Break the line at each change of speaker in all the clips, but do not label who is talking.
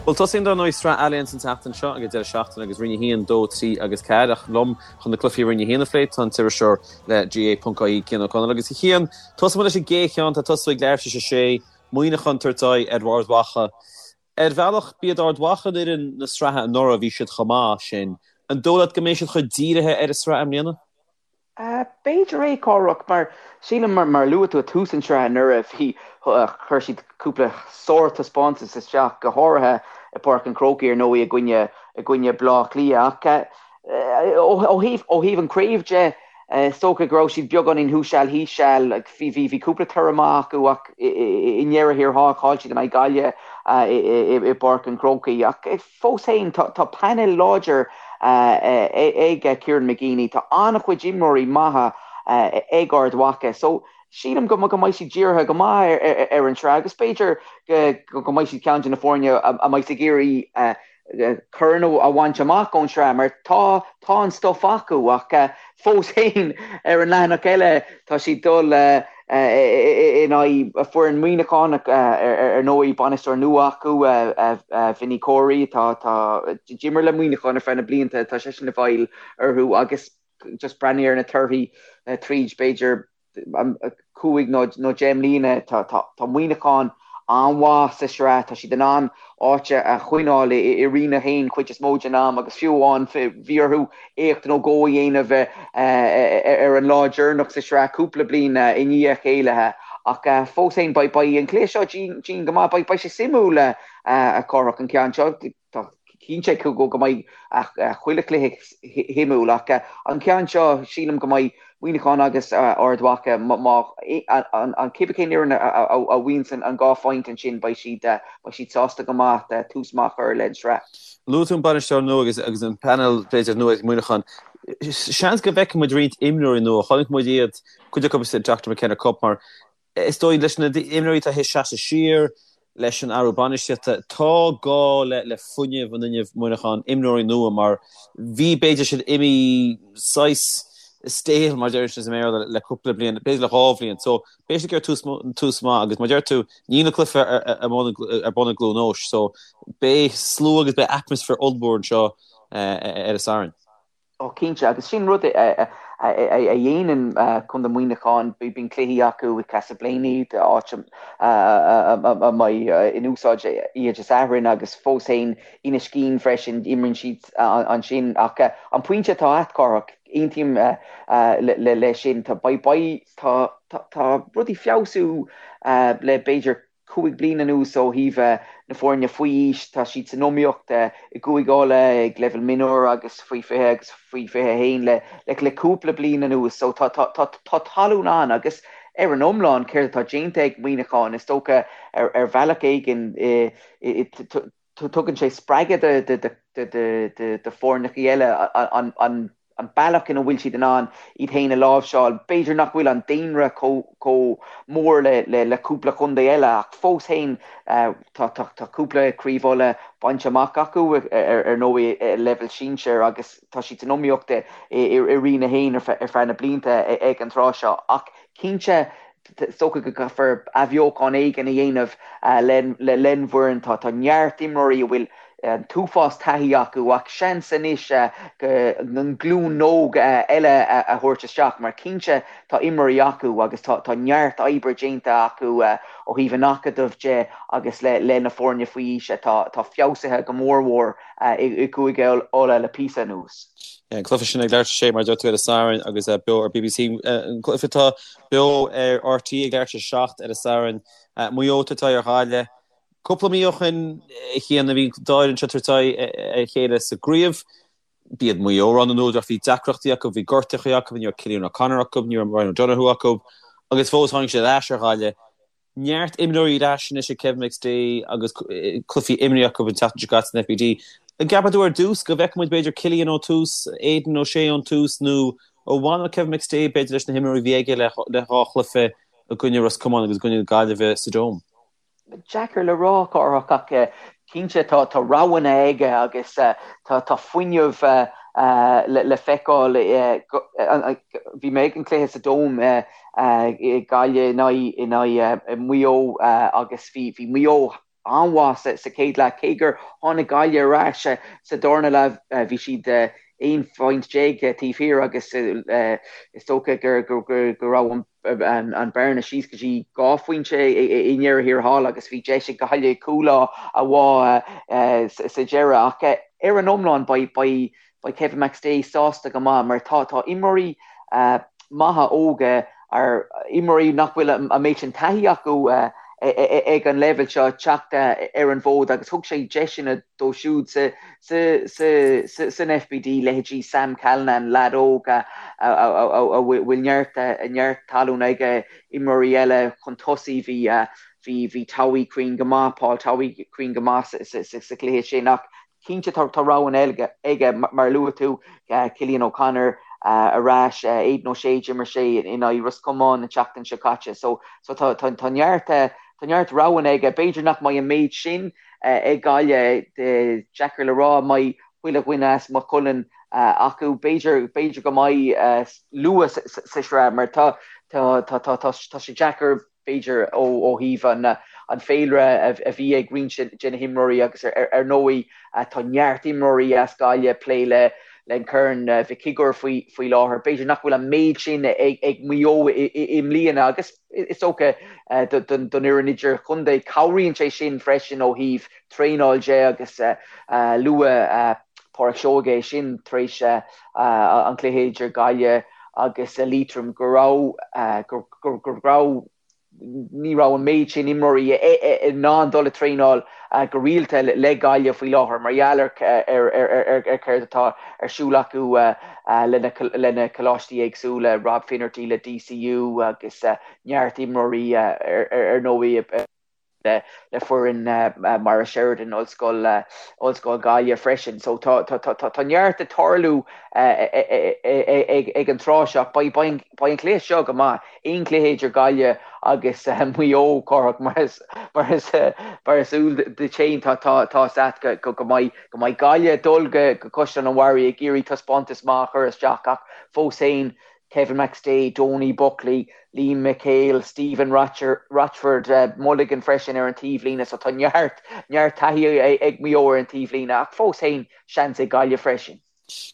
Bhuel, tosaíonn dar ndóigh Sraith Allianz an tseachtain seo ag an deireadh seachtaine agus Roinn 1, 2, 3 agus 4 ach liom chun na cluichí Roinn 1 a phlé tá an t-iriseoir le GAA.ie Cian Ó Conaill agus a Chian, tosóidh muid leis an gcéad cheann, tá tosú ag leathuair tar éis a sé, Muineachán tabhairt aghaidh ar Ard Mhacha. Ar bhealach, b'iad Ard Mhacha an fhoireann na sraithe anuraidh, bhí siad chomh maith sin. An dóigh leat go mbeidh siad chomh dírithe ar an sraith i mbliana?
B'fhéidir é, Cárthach, mar sílim, mar a luaigh tú ag tús an tsraith anuraidh, bhí, chuir siad cúpla sárthaispeántas isteach, go háirithe i bPáirc an Chrócaigh ar ndóigh i gcoinne, i gcoinne Bleá Cliath. Ach ó thaobh, ó thaobh an chraobh de, is dócha go raibh siad beagáinín thuas seal thíos seal. Bhí, bhí, bhí cúpla toradh maith acu ach i ndeireadh thiar thall chaill siad in aghaidh Gaillimhe i bPáirc an Chrócaigh. Ach Fós féin, tá painéal láidir ag Kieran McGeeney. Tá an-chuid imreoirí maithe ag Ard Mhacha so sílim go mbeidh siad dírithe go maith ar an tsraith agus b'fhéidir go mbeidh siad ceann de na foirne a mbeidh ag iarraidh corn a bhaint amach ón tsraith mar tá tá an stuif acu ach fós féin ar an leathanach eile tá siad dul in aghaidh foireann Muineachán ar ndóigh, bainisteoir nua acu, Vinny Corey, atá d'imir le Muineachán ar feadh na blianta, tá seisean i bhfeighil orthu agus just breathnaigh ar na torthaí tríd b'fhéidir 5 nó 10 mbliana, tá Muineachán an-mhaith sa sraith, tá siad in ann áit a choinneáil i Roinn 1 cuid is mó den am agus fiú amháin bhí orthu éacht nó dhó a dhéanamh ar an lá deireanach sa sraith cúpla bliain i ndiaidh a chéile. Ach fós féin beidh an cluiche seo dian go maith. Beidh sé suimiúil a Chárthach an ceann seo. Tá cinnte go mbeidh chuile chluiche shuimiúil ach an ceann seo sílim go mbeidh Muineachán agus Ard Mhacha má an cibé cén fhoireann a bhuanns an dhá phointe ansin beidh siad beidh siad sásta go maith tús maith a chur le an sraith.
Luaigh tú an bainisteoir nua agus agus an painéal b'fhéidir nua ag Muineachán. Seans go bhfeicfidh muid roinnt imreoirí nua. Chonaic muid iad cuid acu sa Dr McKenna Cup mar Is dóigh, leis na himreoirí atá théis seasamh siar, leis an athrú bainistíochta, tá gá le fuinneamh an fhuinnimh Muineachán, imreoirí nua mar bhí, b'fhéidir, siad imithe saghas stale, mar a deir siad i mBéarla, le cúpla bliain, b'fhéidir le dhá bhliain. So, beidh siad ag iarraidh tús, tús maith agus mar a deir tú, níl an cluiche ar bun ar bun i gCluain Eois. So, beidh slua agus beidh atmaisféar ollmhór anseo ar an Satharn.
Ó cinnte, agus sin rud a dhéanann Contae Mhuineacháin, bíonn cluichí acu i Castleblayney, áit a mbeidh in úsáid oíche Dé Sathairn agus fós féin Inis Caoin freisin, imríonn siad ansin. Ach an pointe atá a't, Cárthach, aontaím leis sin, tá rudaí feabhsú le b'fhéidir 5 bliana anuas ó thaobh na foirne faoi aois. Tá siad san iomaíocht i gCúige Uladh ag leibhéal mionúir agus faoi 20 agus faoi 21 le le cúpla bliain anuas. So tá tá tá tá talún ann agus ar an iomlán céard atá déanta ag Muineachán is dócha ar ar bhealach éigin tugann sé spreagadh do do do foirneacha eile an an an bealach ina bhfuil siad in ann iad féin a láimhseáil. B'fhéidir nach bhfuil an daonra chomh mór le cúpla contae eile ach fós féin tá cúpla Craobh Uladh bainte amach acu ar ndóigh ag leibhéal sinsir agus tá siad san iomaíocht i Roinn 1 ar feadh na blianta ag an tráth seo. Ach cinnte Is dócha go gcaithfear athbheochan éigin a dhéanamh len bhfoireann. Tá neart imreoirí a bhfuil an t-uafás taithí acu ach seans anois an glúin óg eile a thabhairt isteach mar cinnte tá imreoirí acu agus tá neart oibre déanta acu ó thaobh an acadaimh de agus le na foirne faoi aois atá feabhsaithe go mór mhór i gCúige Uladh le píosa anuas.
An cluiche sin ag leathuair tar éis a sé mar a deir tú ar an Satharn agus beo ar BBC. An cluiche atá beo ar RTÉ ag leathuair tar éis a 7 ar an Satharn. Maigh Eo tabhairt aghaidh ar Ghaillimh. Cúpla mí ó shin a Chian bhí an dá fhoireann seo tabhairt aghaidh ar a chéile sa gcraobh. B'iad Maigh Eo rogha na n-údar ach bhí deacrachtaí acu, bhí gortuithe acu, ní raibh Cillian O'Connor acu, ní raibh Ryan O'Donoghue acu agus fós tháinig siad ar ais ar Ghaillimh. Neart imreoirí ar ais anois ag Kevin McStay agus cluichí imrithe acu an tseachtain seo caite san FBD. An gceapann tú ar dtús go bhfeicfidh muid b'fhéidir Cillian ón tús, Aidan O'Shea ón tús nó an bhfanfaidh Kevin McStay b'fhéidir leis na himreoirí a bhí aige le dhá chluiche i gcoinne Ros Comáin agus i gcoinne na Gaillimhe sa Dome?
Deacair le rá, Cárthach, ach cinnte tá roghanna aige agus tá fuinneamh le feiceáil. Bhí mé ag an cluiche sa Dome Gaillimh in aghaidh Maigh Eo agus bhí Maigh Eo. an-mhaith sa chéad leath, cé gur tháinig Gaillimh ar ais sa darna leath, bhí siad 11 phointe taobh thiar agus is dócha go raibh an bearna síos go dtí 2 phointe i ndeireadh thiar thall agus bhí deis ag Gaillimh cúl a bhá sa deireadh. Ach ar an iomlán beidh Kevin McStay sásta go maith mar tá imreoirí maithe óga, ar imreoirí nach bhfuil an méid sin taithí acu ag an leibhéal seo, teacht ar an bhfód agus thug sé deiseanna dóibh siúd san FBD, leithéidí Sam Callinan, leaid óg a bhfuil neart neart talún aige, imreoirí eile chun tosaigh, bhí bhí Towey cruinn go maith, Paul Towey cruinn go maith sa chluiche sin ach cinnte tá roghanna aige mar a luaigh tú, Cillian O'Connor ar ais, Aidan O'Shea, d'imir sé in aghaidh Ros Comáin an tseachtain seo caite so tá neart tá neart roghanna aige. B'fhéidir nach mbeidh an méid sin ag Gaillimh, deacair le rá an mbeidh chuile dhuine as Maigh Cuilinn acu. B'fhéidir b'fhéidir go mbeidh luath sa sraith mar tá tá tá tá sé deacair b'fhéidir ó thaobh an féilire a bhí ag roinnt de na himreoirí agus ar ndóigh tá neart imreoirí as Gaillimh ag plé le an Corn Mhic Shigiúir faoi láthair. B'fhéidir nach bhfuil an méid sin ag Maigh Eo i mbliana agus is dócha don fhoireann idirchontae cabhraíonn sé sin freisin ó thaobh traenáil de agus luaigh Pádraic Seoige é sin tar éis an chluiche idir Gaillimh agus Liatroim go raibh go raibh ní raibh an méid sin imreoirí in ann dul ag traenáil go rialta le Gaillimh faoi láthair mar gheall ar ar céard atá ar siúl acu lena coláistí éagsúla, Rob Finnerty le DCU agus neart imreoirí ar ndóigh. le foireann Maura Sheridan, Ollscoil Ollscoil Gaillimh freisin. So tá tá neart ag tarlú ag an tráth seo. Beidh an cluiche seo go maith. Aon chluiche idir Gaillimh agus Maigh Eo, Cárthach, mar is mar is mar is eol duit féin tá tá tá 's agat go go mbeidh go mbeidh Gaillimh ag dul go go Caisleán an Bharraigh ag iarraidh taispeántas maith a chur isteach ach fós féin Kevin McStay, Donie Buckley, Liam McHale, Stephen Rochford, Mulligan freisin ar an taobhlíne so tá neart, neart taithí ag Maigh Eo ar an taobhlíne ach fós féin seans ag Gaillimh freisin.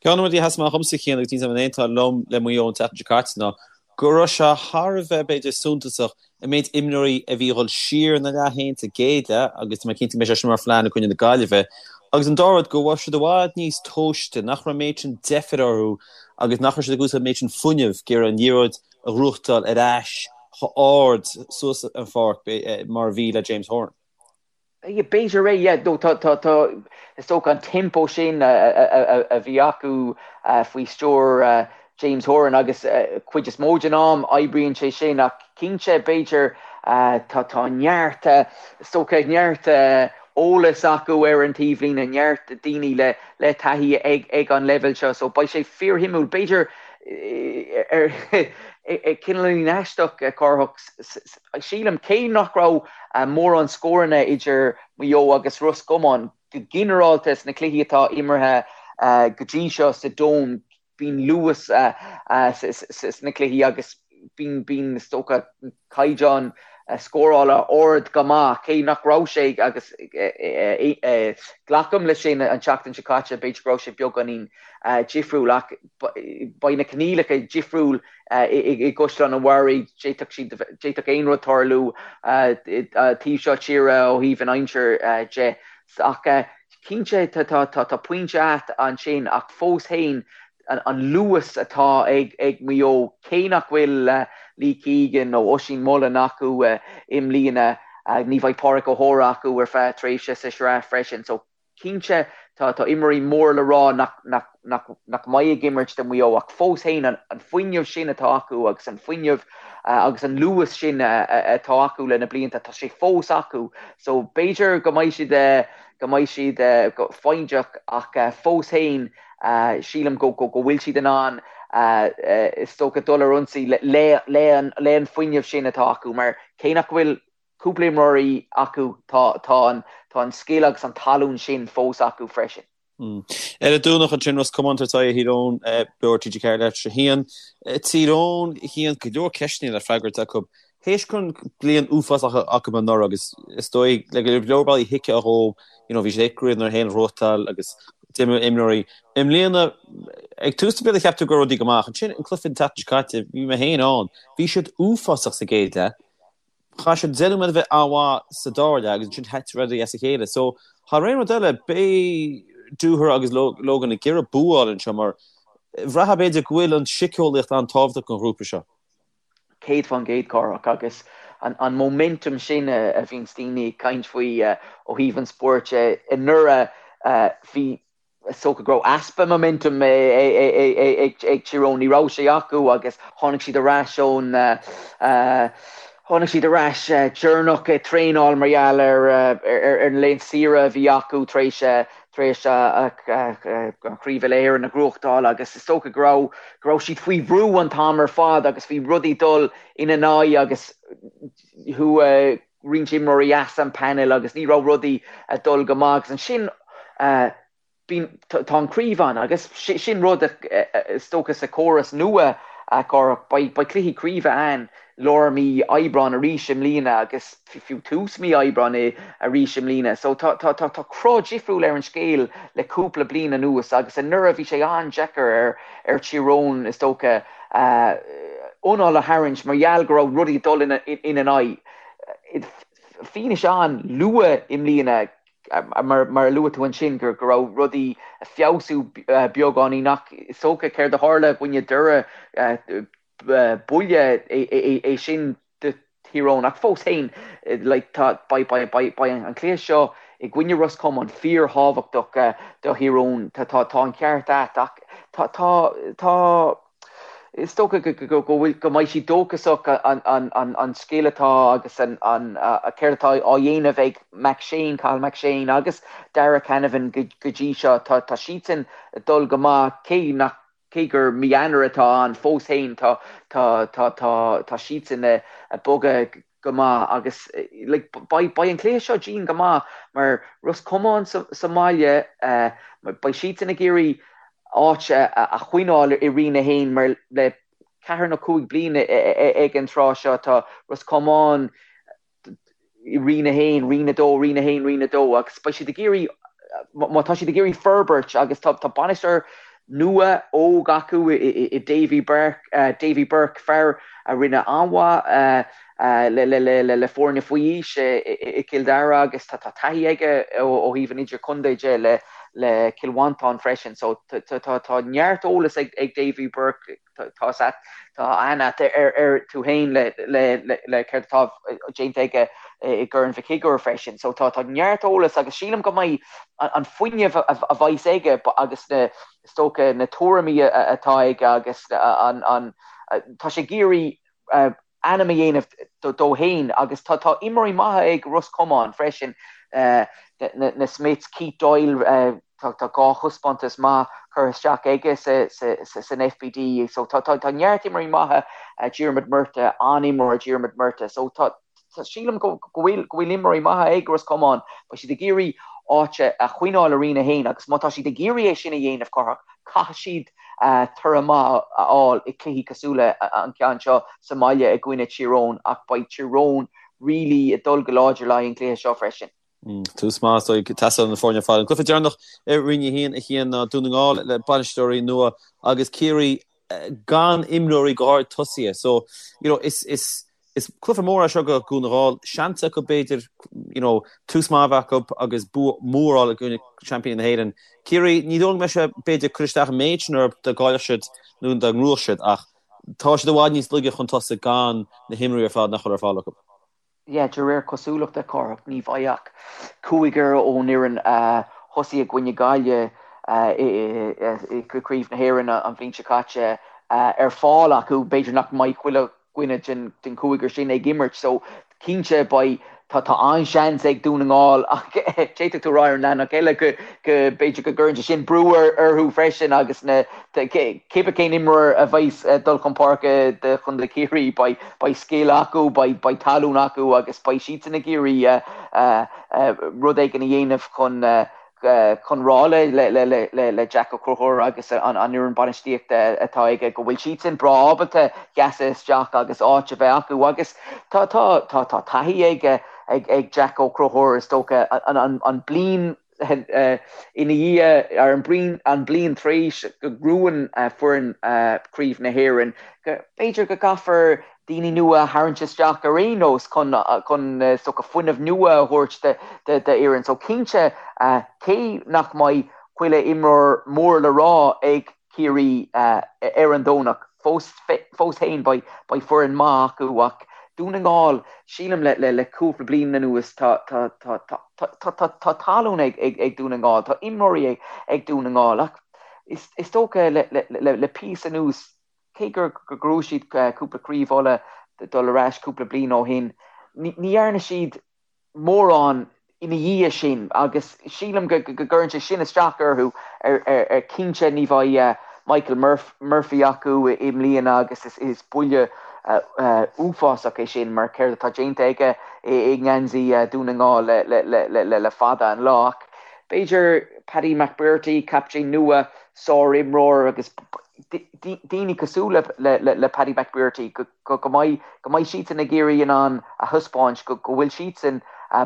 Ceann de na rudaí a sheas amach dhomsa a Chian agus níl 's agam an aontófá liom le Maigh Eo an tseachtain seo caite ná go raibh sé thar a bheith b'fhéidir suntasach an méid imreoirí a bhí ag dul siar ina leath féin sa gcéad leath agus tá mé cinnte go mbeidh sé sin mar phlean i gcoinne na Gaillimhe agus an dara rud go raibh siad i bhfad níos tomhaiste, nach raibh an méid sin deifir orthu agus nach raibh siad ag úsáid an méid sin fuinnimh ag iarraidh an liathróid a ghnóthachtáil ar ais chomh hard suas an pháirc mar a bhí le James Horan.
B'fhéidir é, yeah, nó tá, tá, tá, is dócha an tempo sin a bhí acu faoi stiúir James Horan agus cuid is mó den am oibríonn sé sin ach cinnte b'fhéidir tá, tá neart, is dócha neart eolas acu ar an taobhlíne, neart daoine le, le taithí ag, ag an leibhéal seo so beidh sé fíorshuimiúil. B'fhéidir ar, cineáilín aisteach, Cárthach, Sílim, cé nach raibh mórán scóranna idir Maigh Eo agus Ros Comáin, go ginearálta sna cluichí atá imeartha go dtí seo sa Dome, bíonn luas sna cluichí agus bíonn, is dócha, caighdeán scórála ard go maith, cé nach raibh sé, agus glacaim leis sin, an tseachtain seo caite, b'fhéidir go raibh sé beagáinín difriúil ach beidh na coinníollacha difriúil i gCaisleán an Bharraigh, d'fhéadfadh siad, d'fhéadfadh aon rud tarlú taobh seo tíre ó thaobh an aimsir de. Ach cinnte tá pointe agat ansin ach fós féin an luas atá ag Maigh Eo, cé nach bhfuil Lee Keegan nó Oisín Mullin acu i mbliana, ní bheidh Pádraic O'Hora acu ar feadh tréimhse sa sraith freisin. So Cinnte, tá imreoirí mór le rá nach mbeidh ag imirt do Mhaigh Eo ach fós féin an fuinneamh sin atá acu agus an fuinneamh agus an luas sin atá acu le na blianta, tá sé fós acu. So b'fhéidir go mbeidh siad go mbeidh siad foighdeach ach fós féin sílim go bhfuil siad in ann is dócha dul ar ionsaí le an fuinneamh sin atá acu mar cé nach bhfuil cúpla imreoirí acu, tá tá an tá an scil agus an talún sin fós acu freisin.
Ar an Domhnach ansin, Ros Comáin ag tabhairt aghaidh ar Thír Eoghain, beo ar TG4 leathuair tar éis a haon. Tír Eoghain, a Chian, go leor ceisteanna le freagairt acu. Théis go raibh bliain uafásach acu anuraidh agus is dóigh le go leor bealaí thuigfeá dhóibh, you know, bhí siad ag craobh na hÉireann a ghnóthachtáil agus d'imigh imreoirí. I mbliana, ag tús na bliana cheap tú go raibh rudaí go maith ach ansin an cluiche an tseachtain seo caite, bhí mé féin ann, bhí siad uafásach sa gcéad leath. Chaith siad 10 nóiméad a bheith an-mhaith sa dara leath agus ansin thit rudaí as a chéile. So, thar aon rud eile, beidh Dooher agus Logan ag iarraidh bua a fháil anseo mar bhraithfeá b'fhéidir go bhfuil an síceolaíocht an-tábhachtach don ghrúpa seo.
100% Cárthach agus an momentum sin a bhíonns daoine ag caint faoi ó thaobh an spóirt de. Anuraidh bhí, is dócha go raibh easpa momentum ag Tír Eoghain, ní raibh sé acu agus tháinig siad ar ais ón, tháinig siad ar ais deireanach ag traenáil mar gheall ar an laethanta saoire a bhí acu tar éis tar éis an Chraobh Uile-Éireann a ghnóthachtáil agus is dócha go raibh go raibh siad faoi bhrú an t-am ar fad agus bhí rudaí dul ina n-aghaidh agus chuaigh roinnt imreoirí as an panel agus ní raibh rudaí ag dul go maith agus ansin bíonn tá an chraobh ann agus sin rud is dócha sa chóras nua a Chárthach beidh cluichí craoibhe ann lár mí Aibreáin arís i mbliana agus fiú tús mí Aibreáin arís i mbliana. So tá tá tá tá cruth difriúil ar an scéal le cúpla bliain anuas agus anuraidh bhí sé an-deacair ar ar Tír Eoghain is dócha anáil a tharraingt mar gheall go raibh rudaí ag dul ina ina n-aghaidh. Fianaise ann luath i mbliana mar mar a luaigh tú ansin go go raibh rudaí ag feabhsú beagáinín ach is dócha céard a tharla i gcoinne Doire buille é sin do Thír Eoghain ach fós féin like tá beidh beidh beidh beidh an cluiche seo i gcoinne Ros Comáin fíorthábhachtach do Thír Eoghain. Tá tá tá an ceart a't ach tá tá tá is dócha go go go bhfuil go mbeidh siad dóchasach an an an an scil atá agus an an céard atá á dhéanamh ag McShane, Cathal McShane agus Darragh Canavan go go dtí seo. Tá tá siadsan ag dul go maith cé nach Cé gur mí Eanáir atá ann fós féin, tá tá siadsan ag bogadh go maith agus like beidh beidh an cluiche seo dian go maith mar Ros Comáin sa sa mbaile beidh siadsan ag iarraidh áit a choinneáil i Roinn 1 mar le ceathair nó 5 bliana ag an tráth seo tá Ros Comáin i Roinn 1, Roinn 2, Roinn 1, Roinn 2 agus beidh siad ag iarraidh, má tá siad ag iarraidh forbairt agus tá bainisteoir nua óg acu i Davy Burke, Davy Burke, fear a rinne an-mhaith le foirne faoi aois i gCill Dara agus tá taithí aige ó thaobh an idirchontae de le Cill Mhantáin freisin. So tá neart eolas ag Davy Burke. Tá tá aithne a't air tú féin le le céard atá déanta aige i gCorn Mhic Shigiúir freisin. So tá tá neart eolas agus sílim go mbeidh an fuinneamh a bheas aige agus na is dócha na tuairimí atá aige agus an an tá sé ag iarraidh ainm a dhéanamh dó féin agus tá tá imreoirí maithe ag Ros Comáin freisin, na Smiths, Keith Doyle, tá tá 2 thaispeántas maith curtha isteach aige sa sa san FBD so tá tá tá neart imreoirí maithe, Diarmuid Murtagh, an-imreoir Diarmuid Murtagh so tá tá sílim go go bhfuil go bhfuil imreoirí maithe ag Ros Comáin, beidh siad ag iarraidh áit a choinneáil i Roinn 1 agus má tá siad ag iarraidh é sin a dhéanamh Cárthach, Caithfidh siad toradh maith a fháil i cluichí cosúil le an ceann seo sa mbaile i gcoinne Tír Eoghain ach beidh Tír Eoghain really ag dul go láidir le haghaidh an chluiche seo freisin.
Tús maith is dóigh ag teastáil ó na foirne ar fad. An cluiche deireanach i Roinn 1 a Chian ná Dún na nGall le bainisteoirí nua agus Ciarraí gan imreoirí go háirid tosaithe. So, you know, is, is, Is cluiche mór é seo do Dhún na nGall. Seans acu b'fhéidir you know tús maith a bheith acu agus bua mór a fháil i gcoinne seaimpíní na hÉireann. Ciarraí, ní dóigh liom go mbeidh sé b'fhéidir cur isteach an méid sin orthu dá gcaillfeadh siad nó dá ngnóthódh siad ach tá siad i bhfad níos laige chun tosaigh gan na himreoirí ar fad nach bhfuil ar fáil acu.
Yeah, de réir cosúlachta, Cárthach, ní bheidh ach cúigear ón fhoireann a thosaigh i gcoinne Gaillimh i gCraobh na hÉireann an bhliain seo caite ar fáil acu. B'fhéidir nach mbeidh chuile dhuine den chúigear sin ag imirt so cinnte beidh tá tá an-seans ag Dún na nGall ach d'fhéadfadh tú a rá ar an leathanach eile go go b'fhéidir go gcuireann sé sin brú orthu freisin agus na cibé cén imreoir a bheas ag dul chun páirce do Chontae Chiarraí beidh beidh scil acu beidh beidh talún acu agus beidh siadsan ag iarraidh rud éigin a dhéanamh chun. chun rá le Jack Ó Conchúir agus an fhoireann bainistíochta atá aige go bhfuil siadsan breá ábalta seasamh isteach agus áit a bheith acu agus tá tá tá taithí ag ag Jack Ó Conchúir is dócha an bliain ina dhiaidh ar an bliain an bliain tar éis go ngnóthaíonn foireann Craobh na hÉireann go b'fhéidir go gcaithfear daoine nua a tharraingt isteach ar aon nós chun chun is dócha fuinneamh nua a thabhairt d'fhoireann. So cinnte cé nach mbeidh chuile imreoir mór le rá ag Ciarraí ar an Domhnach, fós fós féin beidh beidh foireann maith acu ach Dún na nGall, sílim le le le cúpla bliain anuas tá tá tá tá tá tá tá tallann ag ag ag Dún na nGall, tá imreoirí ag ag Dún na nGall ach is is dócha le le le le píosa anuas Cé gur ghnóthaigh siad cúpla craobh Uladh dul ar ais cúpla bliain ó shin, ní dhearna siad mórán ina dhiaidh sin agus sílim go gcuireann sé sin isteach orthu. Ar cinnte ní bheidh Michael Murphy acu i mbliana agus is buille uafásach é sin mar céard atá déanta aige i ngeansaí Dhún na nGall le fada an lá. Ach b'fhéidir Paddy McBrearty, captaen nua, sár-imreoir agus daoine cosúil le Paddy McBrearty, go mbeidh go mbeidh siadsan ag iarraidh in ann a thaispeáint go bhfuil siadsan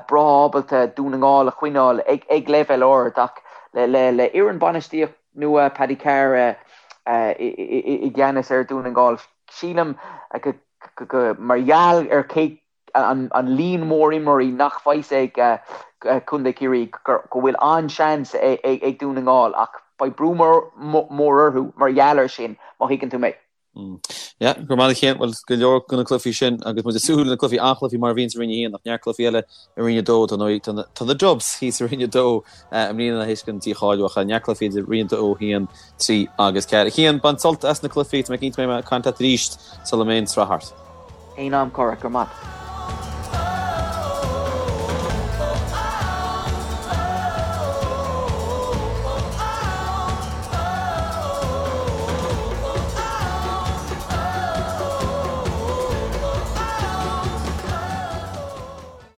breá ábalta Dún na nGall a choinneáil ag leibhéal ard ach le fhoireann bainistíocht nua Paddy Carr i gceannas ar Dhún na nGall, sílim go mar gheall ar cé an líon mór imreoirí nach bheidh ag Contae Chiarraí go bhfuil an-seans ag Dún na nGall ach beidh brú mór orthu mar gheall air sin, má thuigeann tú mé.
Yeah, go raibh maith agat a Chian. Bhuel, go leor de na cluichí sin agus muid ag súil le na cluichí, an-chluichí mar a bhíonn sa Roinn 1 ach neart cluichí eile i Roinn 2 tá na tá na Dubs thíos i Roinn 2 i mbliana théis an dícháiliú ach neart cluichí idir Roinn 2, 1, 3 agus 4. A Chian, bain sult as na cluichí, tá mé cinnte go mbeidh mé ag caint leat arís sula mbeidh an tsraith thart.
Aon am, Cárthach, go raibh maith.